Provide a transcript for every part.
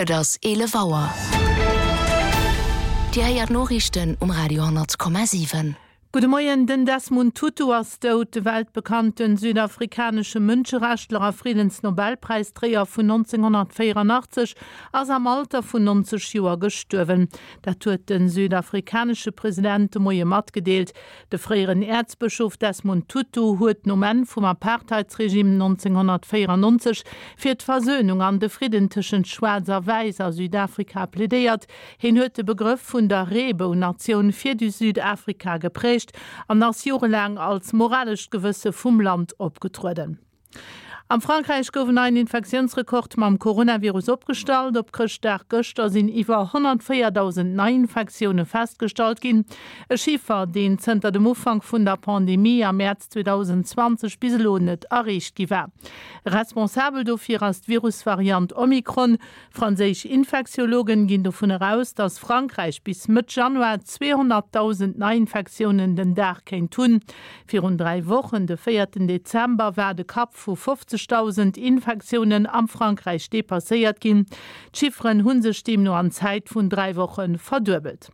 Et ass 11 Auer. Dir héiert d'Noriichten um Radio 10,7. Gudde Moien, Den Desmond Tutu ass dout. De weltbekannte südafrikanesche Mënscherechtler a Friddensnobelpräisdréier vun 1984 ass am Alter vun 90 Joer gestuerwen. Dat huet de südafrikanesche President de Moie matgedeelt. De fréieren Äerzbëschof Desmond Tutu huet nom Enn vum Apartheidsregime 1994 fir d'Versönung an de Fridden tëschent Schwaarz a Wäiss a Südafrika plädéiert. Hien huet de Begrëff vun der Reebou-Natioun fir Südafrika geprägt an ass jorelaang als moralescht Gewësse vum Land opgetrueden. Am Frankräich gouf en neien Infektiounsrekord mam Coronavirus opgestallt. Op Chrëschtdag gëschter sinn iwwer 104.000 Neiinfektioune festgestallt ginn. E Chiffer, deen zënter dem Ufank vun der Pandemie am Mäerz 2020 bis elo net erreecht gi war. Responsabel dofir ass d'Virusvariant Omikron. Franséisch Infektiologen ginn dovun eraus, datt Frankräich bis Mëtt Januar 200.000 Neiinfektiounen den Dag kéint hunn. Virun 3 Wochen, de véierten Dezember, war de Kapp vu 50.000 Infektiounen am Frankräich depasséiert ginn. D'Chifferen hu sech deemno an Zäit vun 3 Woche verduebelt.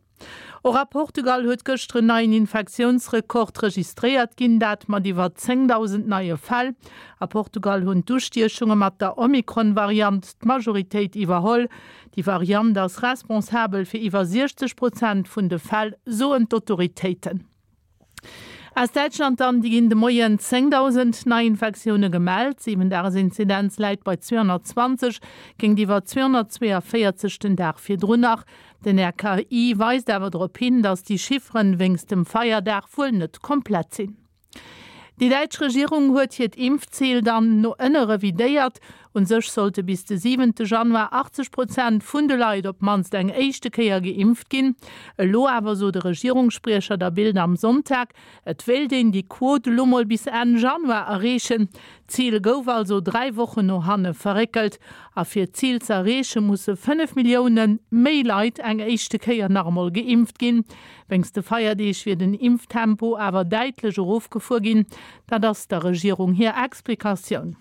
Och a Portugal huet gëschter en neien Infektiounsrekord registréiert ginn, dat mat iwwer 10.000 neie Fäll. A Portugal hunn d'Ustiechunge mat der Omikron-Variant d'Majoritéit iwwerholl. Déi Variant ass responsabel fir iwwer 60 Prozent vun de Fäll, soen d'Autoritéiten. Aus Däitschland dann, déi ginn de Moien 10.000 Neiinfektioune gemellt. D'Siwen-Dages-Inzidenz läit bei 220, géintiwwer 242 den Dag virdrun nach. Den RKI weist awer drop hin, datt déi Chifferen wéinst dem Feierdag wuel net komplett sinn. Déi däitsch Regierung huet hiert Impfzil dann no ënne revidéiert. Un sech sollte bis de siwente Januar 80 Prozent vun de Leit op d'mannst eng éischte Kéier geimpft ginn. Elo awer sot e Regierungsspriecher der Bild am Sonntag, et wéilt een déi Quot elo mol bis Enn Januar erreechen. D'Zil gouf also 3 Wochen no hanne verréckelt. A fir d'Zil ze erreeche musse 5 Millioune méi Leit eng éischte Kéier nach emol geimpft ginn. Wéinst de Feierdeeg wier den Impftempo awer däitlech erofgefuer ginn. Dat ass der Regierung hir Explikatioun.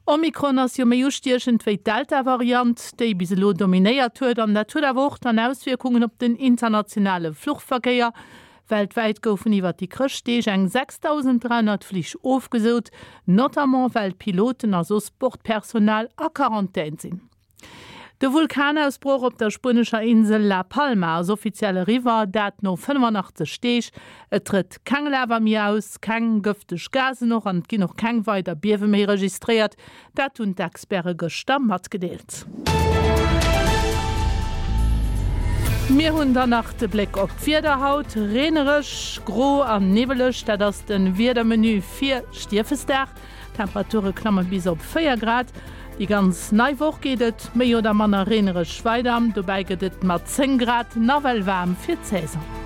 Omikron ass jo méi ustiechend wéi d'Delta-Variant, déi bis elo dominéiert huet. An dat huet awer och dann Auswierkungen op den internationale Fluchverkéier. Weltwäit goufen iwwer déi Chrëschtdeeg eng 6.300 Flich ofgesot, notamment well d'Piloten a soss Bordpersonal a Quarantän sinn. De Vulkanausbroch op der spuenescher Insel La Palma ass offiziell eriwwer, dat no 85 Deeg. Et trëtt keng Lava méi aus, keng gëfteg Gasen och an et ginn och keng weider Biewe méi registréiert. Dat hunn d'Experte gëschter matgedeelt. Mir hunn dann nach de Bléck op d'Wieder haut, Reenereg, gro an niwweleg, dat ass de Wiedermenu fir Stiefesdag. D'Temperature klamme bis op 4 Grad. Déi ganz nei Woch geet et méi oder manner reenereg weider, dobäi gëtt et mat 10 Grad nawell waarm fir d'Saison.